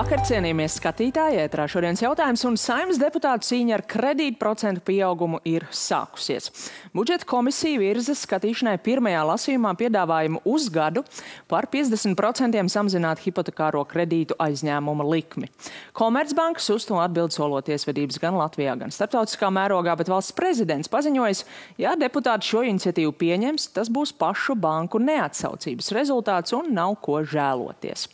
Labvakar, cienījamies skatītāji, ētrā šodienas jautājums, un Saeimas deputātu cīņa ar kredītprocentu pieaugumu ir sākusies. Budžeta komisija virza skatīšanai pirmajā lasījumā piedāvājumu uz gadu par 50% samazināt hipotekāro kredītu aizņēmuma likmi. Komercbankas uz to atbild solot tiesvedības gan Latvijā, gan starptautiskā mērogā, bet valsts prezidents paziņojis, ja deputāti šo iniciatīvu pieņems, tas būs pašu banku neatsaucības rezultāts un nav ko žēloties.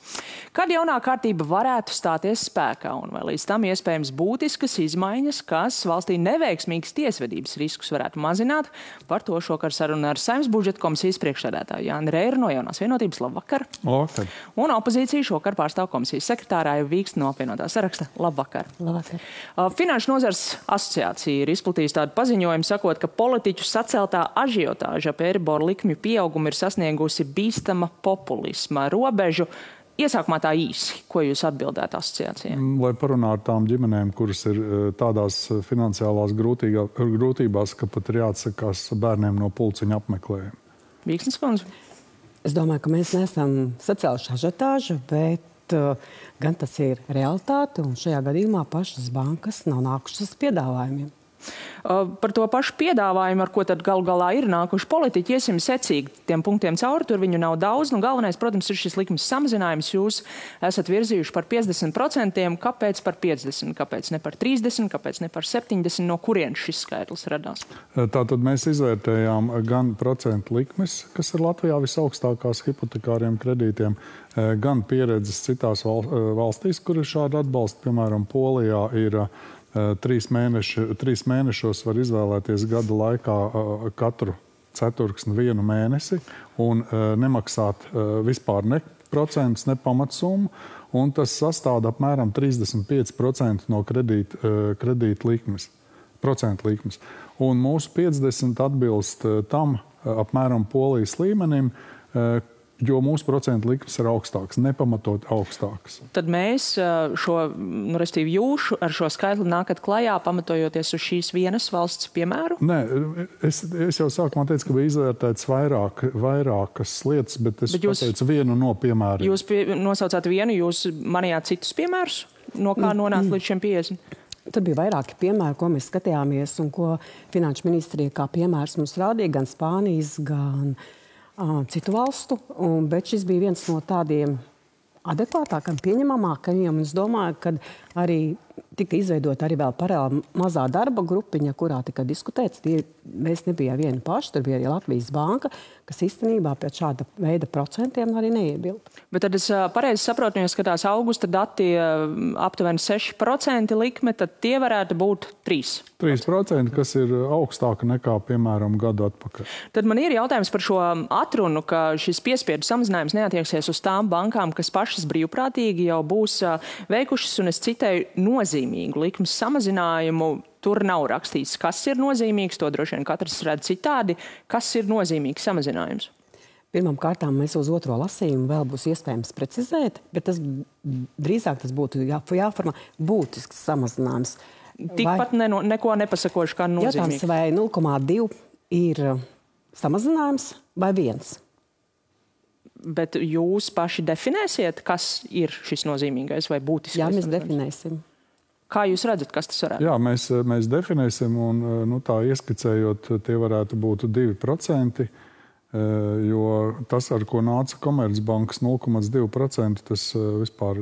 Kad jaunā kārtība varētu stāties spēkā un vai līdz tam iespējams būtiskas izmaiņas, kas valstī neveiksmīgas tiesvedības riskus varētu mazināt, par to šokar saruna ar Saeimas budžeta komisijas priekšsēdētāju Jāni Reiru no Jaunās vienotības. Labvakar! Labvakar! Un opozīciju šokar pārstāv komisijas sekretārā Vīksta no apvienotā saraksta. Labvakar! Labvakar! Finanšu nozars asociācija ir izplatījusi tādu paziņojumu, sakot, ka politiķu saceltā ažiotāža ap Eiriboru likmju pieaugumu ir sasniegusi bīstama populisma robežu. Iesākumā tā īsi, ko jūs atbildētu asociācijai? Lai parunātu tām ģimenēm, kuras ir tādās finansiālās grūtībās, ka pat ir jāatsakās bērniem no pulciņa apmeklējuma. Vīksnes kundze? Es domāju, ka mēs neesam sacēluši ažiotāžu, bet gan tas ir realitāte, un šajā gadījumā pašas bankas nav nākušas piedāvājumiem. Par to pašu piedāvājumu, ar ko tad galu galā ir nākuši politiķi, iesim secīgi tiem punktiem cauri, tur viņu nav daudz. Galvenais, protams, ir šis likums samazinājums. Jūs esat virzījuši par 50%. Kāpēc par 50%? Kāpēc ne par 30%? Kāpēc ne par 70%? No kurienes šis skaitlis radās? Tātad mēs izvērtējām gan procentu likmes, kas ir Latvijā visaugstākās hipotekāriem kredītiem, gan pieredzes citās valstīs, kur ir šāda atbalsta. Piemēram, Polijā ir 3 mēnešos var izvēlēties gada laikā katru ceturksni 1 mēnesi un nemaksāt vispār ne procentus, ne pamatsummu, un tas sastāda apmēram 35% no kredīta likmes, procentu likmes. Un mūsu 50 atbilst tam apmēram Polijas līmenim, jo mūsu procentu likmes ir augstākas, nepamatot augstākas. Tad mēs respektīvi jūs ar šo skaitli nākat klajā, pamatojoties uz šīs vienas valsts piemēru? Nē, es jau sākumā teicu, ka bija izvērtēts vairākas lietas, bet es pateicu vienu no piemēriem. Jūs nosaucāt vienu, jūs manījāt citus piemērus, no kā nonākt līdz šiem 50? Tad bija vairāki piemēri, ko mēs skatījāmies un ko Finanšu ministrija kā piemērs mums rādīja, gan Spānijas, gan citu valstu, bet šis bija viens no tādiem adekvātākam, pieņemamākajiem. Es domāju, ka arī tika izveidota arī vēl paralēli mazā darba grupiņa, kurā tika diskutēts. Mēs nebijām vieni paši, tur bija arī Latvijas banka, kas īstenībā pēc šāda veida procentiem arī neiebilda. Bet tad es pareizi saprotu, ja skatās augusta dati aptuveni 6% likme, tad tie varētu būt 3%. 3%, kas ir augstāka nekā, piemēram, gadu atpakaļ. Tad man ir jautājums par šo atrunu, ka šis piespiedu samazinājums neatieksies uz tām bankām, kas pašas brīvprātīgi jau būs veikušas, un es citēju, nozīmīgu likmes samazinājumu. Tur nav rakstīts, kas ir nozīmīgs, to droši vien katrs redz citādi. Kas ir nozīmīgs samazinājums? Pirmām kārtām mēs uz otro lasījumu vēl būs iespējams precizēt, bet drīzāk tas būtu jāformā būtisks samazinājums. Tikpat neko nepasakoši kā nozīmīgs. Jautājums, vai 0,2 ir samazinājums vai 1? Bet jūs paši definēsiet, kas ir šis nozīmīgais vai būtiskais? Jā, mēs definēsim. Kā jūs redzat, kas tas varētu? Jā, mēs definēsim un tā ieskicējot, tie varētu būt 2%, jo tas, ar ko nāca Komercbankas 0,2%, tas vispār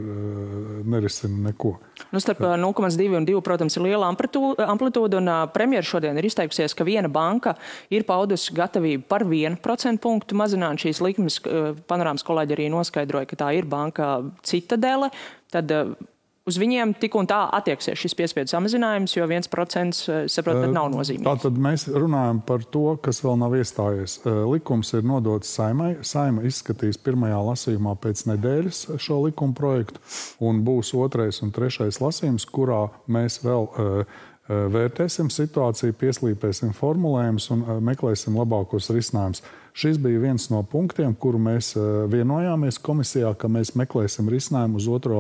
nerisina neko. Starp 0,2 un 2, protams, ir liela amplitūda, un premjera šodien ir izteikusies, ka viena banka ir paudusi gatavību par 1% punktu mazināt šīs likmes. Panorāmas kolēģi arī noskaidroja, ka tā ir banka Citadele. Tad uz viņiem tik un tā attieksies šis piespiedu samazinājums, jo 1%, saprotat, nav nozīmīgs. Tātad mēs runājam par to, kas vēl nav iestājies. Likums ir nodots Saeimai. Saeima izskatīs pirmajā lasījumā pēc nedēļas šo likuma projektu, un būs 2. un 3. lasījums, kurā mēs vēl vērtēsim situāciju, pieslīpēsim formulējumus un meklēsim labākos risinājumus. Šis bija viens no punktiem, kuru mēs vienojāmies komisijā, ka mēs meklēsim risinājumu uz otro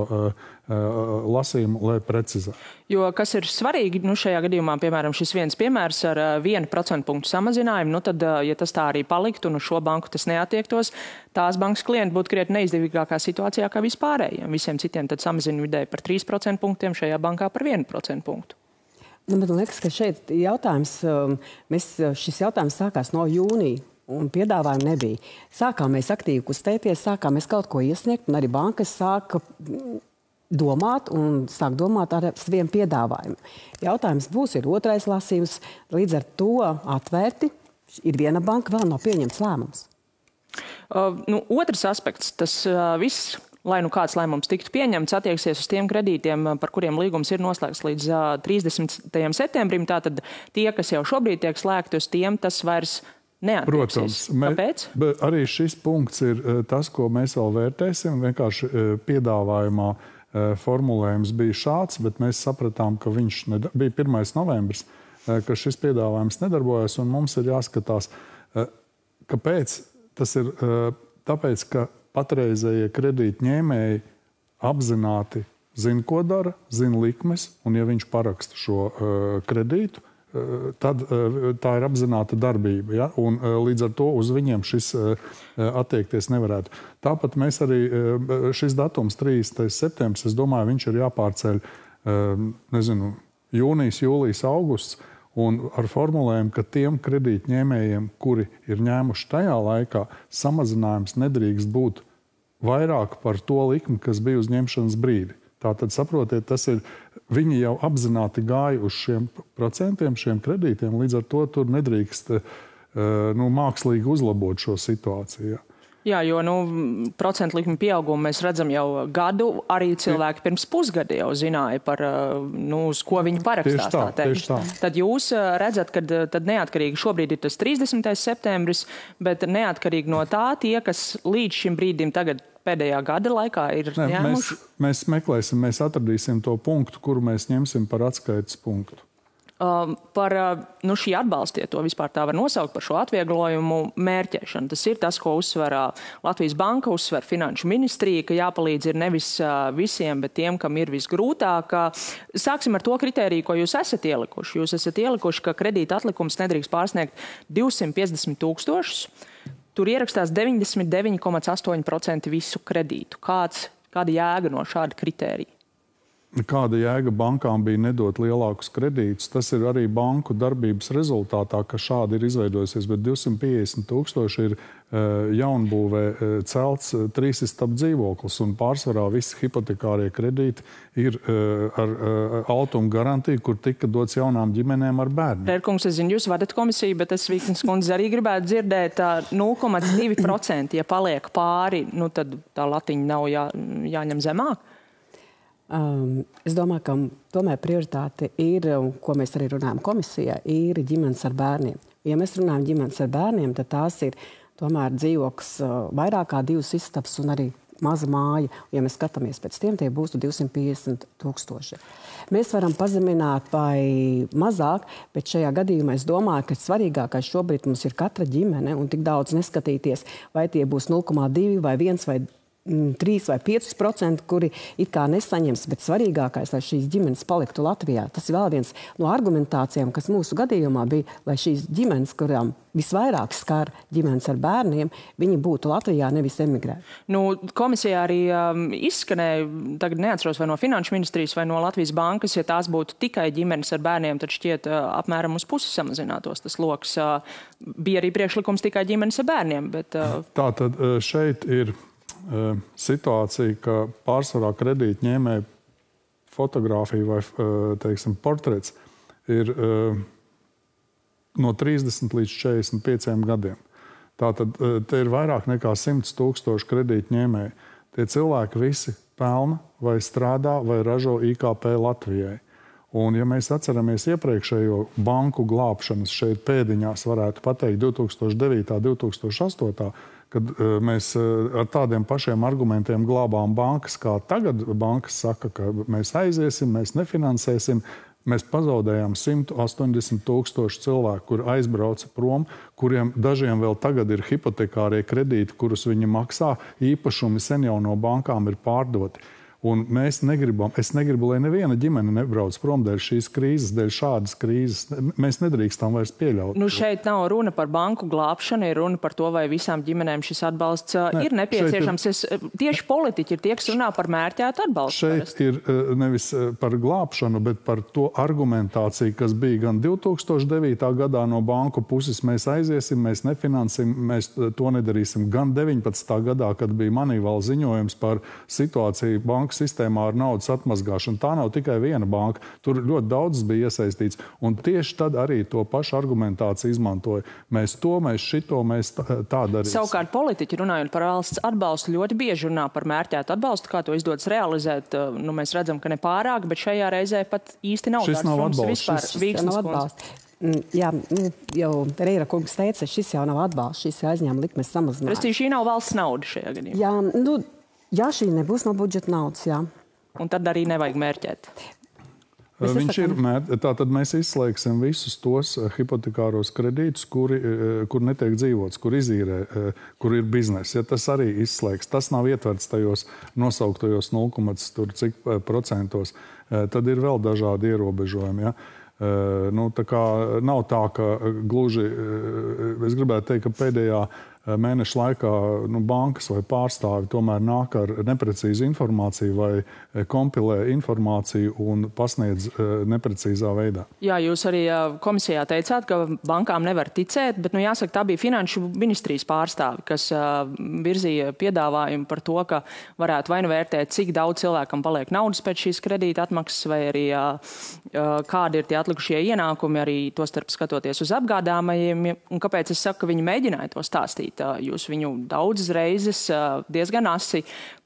lasījumu, lai precizētu. Jo kas ir svarīgi, šajā gadījumā, piemēram, šis viens piemērs ar 1% punktu samazinājumu, tad, ja tas tā arī paliktu un uz šo banku tas neatiektos, tās bankas klienti būtu krietni neizdevīgākā situācijā kā vispārējiem. Visiem citiem tad samazina vidēji par 3% punktiem, šajā bankā par 1% punktu. Man liekas, ka šeit šis jautājums sākās no jūnija. Un piedāvājumu nebija. Sākām mēs aktīvi kustēties, sākām mēs kaut ko iesniegt, un arī bankas sāka domāt ar saviem piedāvājumiem. Jautājums ir otrais lasījums, līdz ar to atvērti ir viena banka, vēl nav pieņemts lēmums. Otrs aspekts, tas viss, lai kāds lēmums tiktu pieņemts, attieksies uz tiem kredītiem, par kuriem līgums ir noslēgts līdz 30. septembrim. Tātad tie, kas jau šobrīd tiek slēgti, uz tiem tas vairs protams, Kāpēc? Arī šis punkts ir tas, ko mēs vēl vērtēsim. Vienkārši piedāvājumā formulējums bija šāds, bet mēs sapratām, ka viņš bija 1. novembris, ka šis piedāvājums nedarbojas, un mums ir jāskatās, kāpēc. Tas ir tāpēc, ka patreizējie kredītņēmēji apzināti zina, ko dara, zina likmes, un ja viņš paraksta šo kredītu, tad tā ir apzināta darbība. Ja? Un līdz ar to uz viņiem šis attiekties nevarētu. Tāpat mēs arī šis datums 30. septembris, es domāju, viņš ir jāpārceļ jūnijas, jūlijas, augusts, un ar formulējumu, ka tiem kredītņēmējiem, kuri ir ņēmuši tajā laikā, samazinājums nedrīkst būt vairāk par to likmi, kas bija uz ņemšanas brīdi. Tātad, saprotiet, viņi jau apzināti gāja uz šiem procentiem, šiem kredītiem, līdz ar to tur nedrīkst mākslīgi uzlabot šo situāciju. Jā, jo procentu likmi pieaugumu mēs redzam jau gadu, arī cilvēki pirms pusgada jau zināja par, uz ko viņi parakstās. Tieši tā. Tad jūs redzat, ka tad neatkarīgi šobrīd ir tas 30. septembris, bet neatkarīgi no tā tie, kas līdz šim brīdim tagad pēdējā gada laikā ir ņēmuši? Mēs meklēsim, mēs atradīsim to punktu, kuru mēs ņemsim par atskaites punktu. Par šī atbalsta, ja to vispār tā var nosaukt, par šo atvieglojumu mērķēšanu. Tas ir tas, ko uzsver Latvijas Banka, uzsver Finanšu ministrija, ka jāpalīdz ir nevis visiem, bet tiem, kam ir visgrūtāk. Sāksim ar to kritēriju, ko jūs esat ielikuši. Jūs esat ielikuši, ka kredīta atlikums nedrīkst pārsniegt 250 000. Tur ierakstās 99,8% visu kredītu. Kāda jēga no šāda kritērija? Kāda jēga bankām bija nedot lielākus kredītus? Tas ir arī banku darbības rezultātā, ka šādi ir izveidojusies, bet 250 000 ir jaunbūvē celts 3-istabu dzīvoklis, un pārsvarā visi hipotekārie kredīti ir ar altuma garantiju, kur tika dots jaunām ģimenēm ar bērniem. Rērkungs, es zinu, jūs vadat komisiju, bet es Vīknes kundze arī gribētu dzirdēt 0,2%, ja paliek pāri, tad tā latiņa nav jāņem zemāk. Es domāju, ka tomēr prioritāte ir, ko mēs arī runājam komisijā, ir ģimenes ar bērniem. Ja mēs runājam ģimenes ar bērniem, tad tās ir tomēr dzīvoklis vairāk kā 2 istabas un arī maza māja. Ja mēs skatāmies pēc tiem, tie būs 250 000. Mēs varam pazemināt vai mazāk, bet šajā gadījumā es domāju, ka svarīgākais šobrīd mums ir katra ģimene un tik daudz neskatīties, vai tie būs 0,2 vai 1 vai 3 vai 5%, kuri it kā nesaņems, bet svarīgākais, lai šīs ģimenes paliktu Latvijā. Tas ir vēl viens no argumentācijām, kas mūsu gadījumā bija, lai šīs ģimenes, kurām visvairāk skar ģimenes ar bērniem, viņi būtu Latvijā, nevis emigrēt. Komisijā arī izskanēja, tagad neatceros vai no Finanšu ministrijas vai no Latvijas Bankas, ja tās būtu tikai ģimenes ar bērniem, tad šķiet apmēram uz pusi samazinātos tas loks. Bija arī priekšlikums tikai ģimenes ar bērniem, bet... Tātad šeit ir situācija, ka pārsvarā kredītņēmēja fotogrāfija vai, portrets ir no 30 līdz 45 gadiem. Tātad te ir vairāk nekā 100 000 kredītņēmēji. Tie cilvēki visi pelna vai strādā vai ražo IKP Latvijai. Un, ja mēs atceramies iepriekšējo banku glābšanas šeit pēdiņās, varētu pateikt 2009. 2008. Kad mēs ar tādiem pašiem argumentiem glābām bankas, kā tagad bankas saka, ka mēs aiziesim, mēs nefinansēsim. Mēs pazaudējām 180 000 cilvēku, kuri aizbrauca prom, kuriem dažiem vēl tagad ir hipotekārie kredīti, kurus viņi maksā, īpašumi sen jau no bankām ir pārdoti. Un es negribu, lai neviena ģimene nebrauc prom dēļ šīs krīzes, dēļ šādas krīzes. Mēs nedrīkstam vairs pieļaut. Šeit nav runa par banku glābšanu, ir runa par to, vai visām ģimenēm šis atbalsts ir nepieciešams. Tieši politiķi ir tie, kas runā par mērķētu atbalstu. Šeit ir nevis par glābšanu, bet par to argumentāciju, kas bija gan 2009. gadā no banku puses. Mēs aiziesim, mēs nefinansim, mēs to nedarīsim. Gan 19. gadā, kad bija Moneyval ziņojums par situāciju banku sistēmā ar naudas atmazgāšanu. Tā nav tikai viena banka. Tur ļoti daudz bija iesaistīts. Un tieši tad arī to pašu argumentāciju izmantoja. Mēs tā darīsim. Savukārt politiķi runājot par valsts atbalstu ļoti bieži runā par mērķētu atbalstu, kā to izdodas realizēt. Mēs redzam, ka ne pārāk, bet šajā reizē pat īsti nav. Šis nav atbalsts. Šis nav atbalsts. Jā, jau Reira kungs teica, šis jau nav atbalsts, šis aizņēma likmes samazinājums. Restīvi, šī nav valsts nauda šajā gadījumā. Jā, šī nebūs no budžeta naudas, jā. Un tad arī nevajag mērķēt. Tātad mēs izslēgsim visus tos hipotekāros kredītus, kur netiek dzīvots, kur izīrē, kur ir biznesa. Ja tas arī izslēgs, tas nav ietverts tajos nosauktajos 0,cik%, tad ir vēl dažādi ierobežojumi. Ja? Tā kā nav tā, ka gluži, es gribētu teikt, ka pēdējā mēneša laikā bankas vai pārstāvi tomēr nāk ar neprecīzu informāciju vai kompilē informāciju un pasniedz neprecīzā veidā. Jā, jūs arī komisijā teicāt, ka bankām nevar ticēt, bet jāsaka, tā bija Finanšu ministrijas pārstāvi, kas virzīja piedāvājumu par to, ka varētu vai nu vērtēt, cik daudz cilvēkam paliek naudas pēc šīs kredīta atmaksas, vai arī kādi ir tie atlikušie ienākumi, arī tostarp skatoties uz apgādājumiem. Un kāpēc es saku, ka viņi mēģināja to stāstīt? Jūs viņu daudzas reizes diezgan asi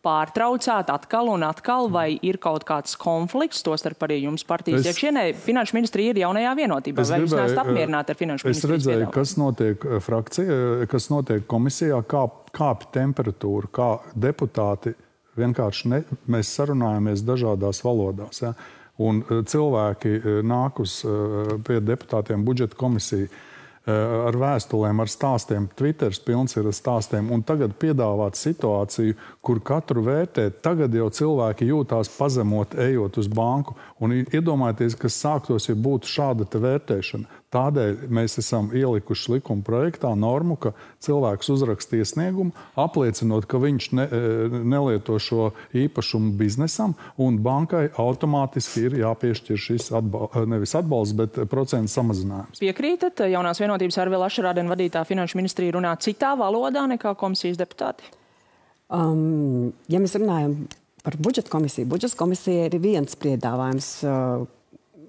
pārtraucāt atkal un atkal, vai ir kaut kāds konflikts, tostarp arī jums partijas iekšienē. Finanšu ministrija ir jaunajā vienotībā. Vai jūs neesat apmierināti ar finanšu ministrijas piedāvājumu? Es redzēju, kas notiek frakcijā, kas notiek komisijā, kāpj temperatūra, kā deputāti vienkārši mēs sarunājamies dažādās valodās. Ja? Un cilvēki nāk pie deputātiem budžeta komisiju ar vēstulēm, ar stāstiem. Twitters pilns ir ar stāstiem. Un tagad piedāvāt situāciju, kur katru vērtēt. Tagad jau cilvēki jūtās pazemot, ejot uz banku. Un iedomājieties, kas sāktos, ja būtu šāda te vērtēšana. Tādēļ mēs esam ielikuši likuma projektā normu, ka cilvēks uzraksta iesniegumu, apliecinot, ka viņš nelieto šo īpašumu biznesam, un bankai automātiski ir jāpiešķir šis nevis atbalsts, bet procentu samazinājums. Piekrītat? Jaunās vienotības Arvila Ašarādena vadītā finanšu ministrija runā citā valodā nekā komisijas deputāti? Ja mēs runājam par budžeta komisija ir viens piedāvājums.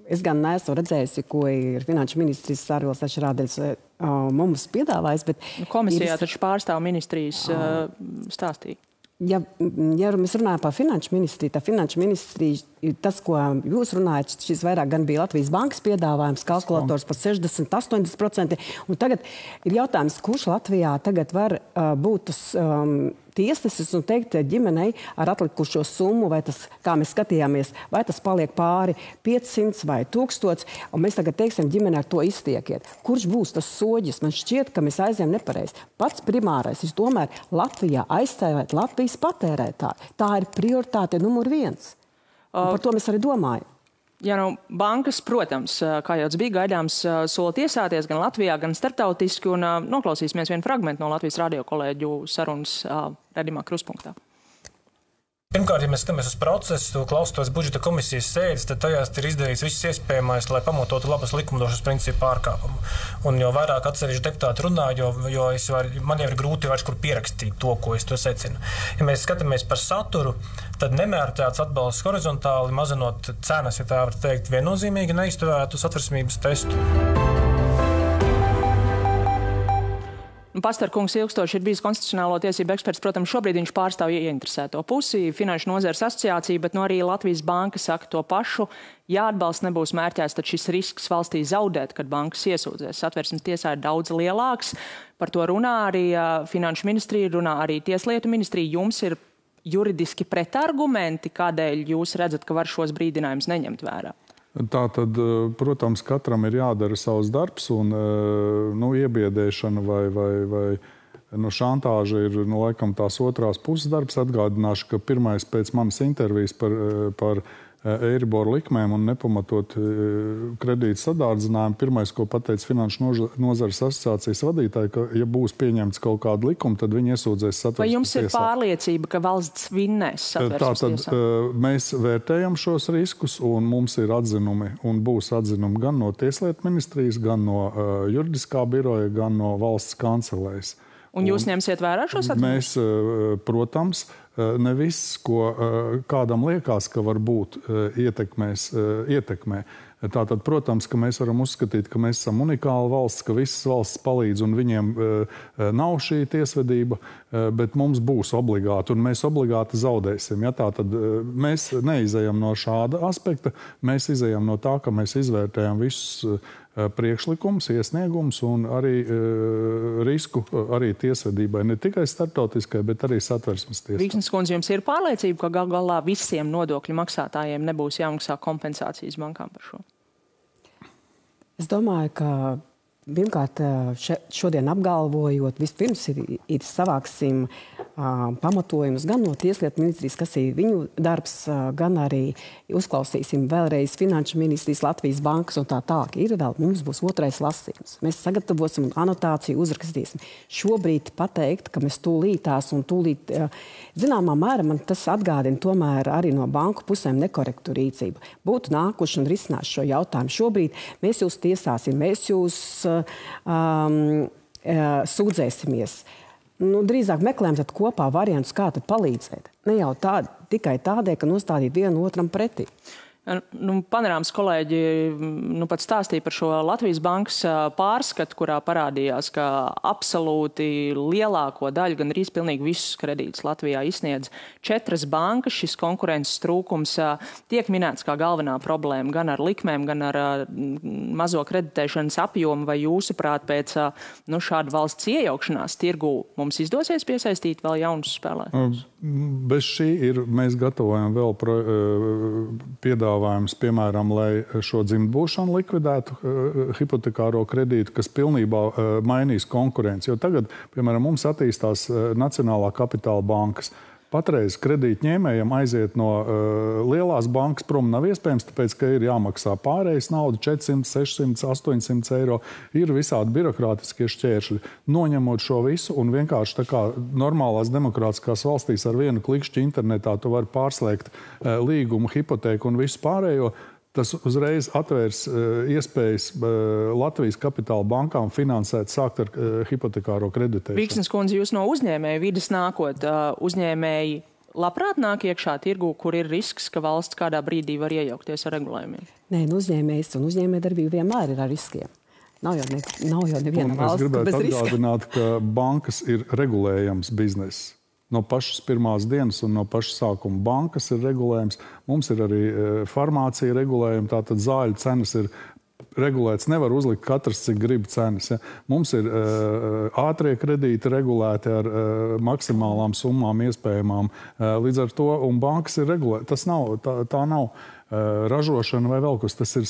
Es gan neesmu redzējusi, ko ir finanšu ministrs Arvils Ašarādens mums piedāvājis, bet... Komisijā taču pārstāv ministrijas stāstīja. Ja mēs runājam par finanšu ministriju, tad finanšu ministrija, tas, ko jūs runājat, šis vairāk gan bija Latvijas bankas piedāvājums, kalkulators par 60–80%. Un tagad ir jautājums, kurš Latvijā tagad var būt tas tiesnesis un teikt ģimenei ar atlikušo summu, vai tas, kā mēs skatījāmies, vai tas paliek pāri 500 vai 1000, un mēs tagad teiksim ģimeni ar to iztiekiet. Kurš būs tas soģis? Man šķiet, ka mēs aizējam nepareizi. Pats primārais ir tomēr Latvijā aizstāvēt Latvijas patērētāju. Tā ir prioritāte numur 1. Par to mēs arī domājam. Ja bankas, protams, kā jau bija gaidāms, sola tiesāties gan Latvijā, gan starptautiski, un noklausīsimies vienu fragmentu no Latvijas radio kolēģu sarunas redzamā kruspunktā. Pirmkārt, ja mēs skatāmies uz procesu, klausoties budžeta komisijas sēdes, tad tajās ir izdarīts viss iespējamais, lai pamatotu labas likumdošanas principu pārkāpumu. Un jo vairāk atsevišķi deputāti runā, jo man jau ir grūti vairs kur pierakstīt to, ko es to secinu. Ja mēs skatāmies par saturu, tad nemērķēts atbalsts horizontāli, mazinot cenas, ja tā var teikt, viennozīmīgi neizturētu satversmības testu. Pastarkungs ilgstoši ir bijis konstitucionālo tiesību eksperts. Protams, šobrīd viņš pārstāv ieinteresēto pusi, Finanšu nozares asociāciju, bet arī Latvijas banka saka to pašu. Ja atbalsts nebūs mērķēts, tad šis risks valstī zaudēt, kad bankas iesūdzēs. Satversmes tiesā ir daudz lielāks. Par to runā arī Finanšu ministrija, runā arī Tieslietu ministrija. Jums ir juridiski pretargumenti, kādēļ jūs redzat, ka var šos brīdinājumus neņemt vērā? Tātad, protams, katram ir jādara savs darbs, un iebiedēšana vai šantāža ir, laikam, tās otrās puses darbs. Atgādināšu, ka pirmais pēc manas intervijas par Eiribor likmēm un nepamatot kredītu sadārdzinājumu, pirmais, ko pateica Finanšu nozares asociācijas vadītāji, ka, ja būs pieņemts kaut kāda likuma, tad viņi iesūdzēs satversmes tiesā. Vai jums ir pārliecība, ka valsts vinnēs satversmes tiesā? Tātad mēs vērtējam šos riskus, un mums ir atzinumi, un būs atzinumi gan no Tieslietu ministrijas, gan no juridiskā biroja, gan no valsts kancelējas. Un jūs ņemsiet vērā šos atzinumus? Mēs, protams, ne viss, ko kādam liekas, ka var būt, ietekmē. Tātad, protams, ka mēs varam uzskatīt, ka mēs esam unikāla valsts, ka visas valsts palīdz un viņiem nav šī tiesvedība, bet mums būs obligāti un mēs obligāti zaudēsim. Ja? Tātad mēs neizejam no šāda aspekta, mēs izejam no tā, ka mēs izvērtējam visus priekšlikums, iesniegums un arī risku arī tiesvedībai, ne tikai starptautiskai, bet arī satversmes tiesai. Vīksnes kundze, jums ir pārliecība, ka gal galā visiem nodokļu maksātājiem nebūs jāmaksā kompensācijas bankām par šo? Es domāju, ka pirmkārt šodien apgalvojot, vispirms ir savāksim pamatojumus gan no Tieslietu ministrijas, kas ir viņu darbs, gan arī uzklausīsim vēlreiz Finanšu ministrijas, Latvijas bankas un tā tālāk. Ir vēl, mums būs otrais lasījums. Mēs sagatavosim un anotāciju uzrakstīsim. Šobrīd pateikt, ka mēs tūlītās un tūlīt, zināmā mērā man tas atgādina tomēr arī no banku pusēm nekorektu rīcību. Būtu nākuši un risināšu šo jautājumu. Šobrīd mēs jūs tiesāsim, mēs jūs sūdzēsimies. Drīzāk meklējam tad kopā variantus, kā tad palīdzēt. Ne jau tikai tādēļ, ka nostādīt vienu otram pretī. Panorāmas kolēģi pat stāstīja par šo Latvijas bankas pārskatu, kurā parādījās, ka absolūti lielāko daļu, gan arī pilnīgi visus kredītus Latvijā izsniedz 4 bankas. Šis konkurences trūkums tiek minēts kā galvenā problēma gan ar likmēm, gan ar mazo kreditēšanas apjomu. Vai jūsuprāt, pēc šāda valsts iejaukšanās tirgū mums izdosies piesaistīt vēl jaunus spēlētājus? Bez šī mēs gatavojam vēl piedāvājums, piemēram, lai šo dzimtbūšanu likvidētu hipotekāro kredītu, kas pilnībā mainīs konkurenci. Jo tagad, piemēram, mums attīstās Nacionālā kapitāla bankas. Patreiz kredītņēmējiem aiziet no lielās bankas prom nav iespējams, tāpēc, ka ir jāmaksā pārējais nauda 400, 600, 800 eiro. Ir visādi birokrātiskie šķēršļi. Noņemot šo visu un vienkārši tā kā normālās demokrātiskās valstīs ar vienu klikšķi internetā tu vari pārslēgt līgumu, hipotēku un visu pārējo, tas uzreiz atvērs iespējas Latvijas kapitāla bankām finansēt, sākt ar hipotekāro kreditēšanu. Vīksnes kundze, jūs no uzņēmēju vides nākot, uzņēmēji labprāt nāk iekšā tirgū, kur ir risks, ka valsts kādā brīdī var iejaukties ar regulējumiem? Nē, uzņēmējs un uzņēmējdarbība vienmēr ir ar riskiem. Nav jau neviena valsts, kas bez riska. Es gribētu atgādināt, ka bankas ir regulējams bizness. No pašas pirmās dienas un no paša sākuma bankas ir regulējums. Mums ir arī farmācija regulējuma, tātad zāļu cenas ir regulēts. Nevar uzlikt katrs, cik grib cenas. Ja? Mums ir ātrie kredīti regulēti ar maksimālām summām iespējamām. Līdz ar to, un bankas ir regulētas. Tā nav ražošana vai vēl kas. Tas ir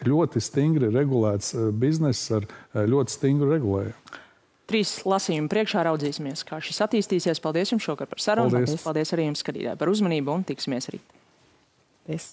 ļoti stingri regulēts bizness ar ļoti stingru regulējumu. 3 lasījumi priekšā raudzīsimies, kā šis attīstīsies. Paldies jums šokar par sarunu. Paldies arī jums, skatītāji, par uzmanību un tiksimies rīt. Paldies.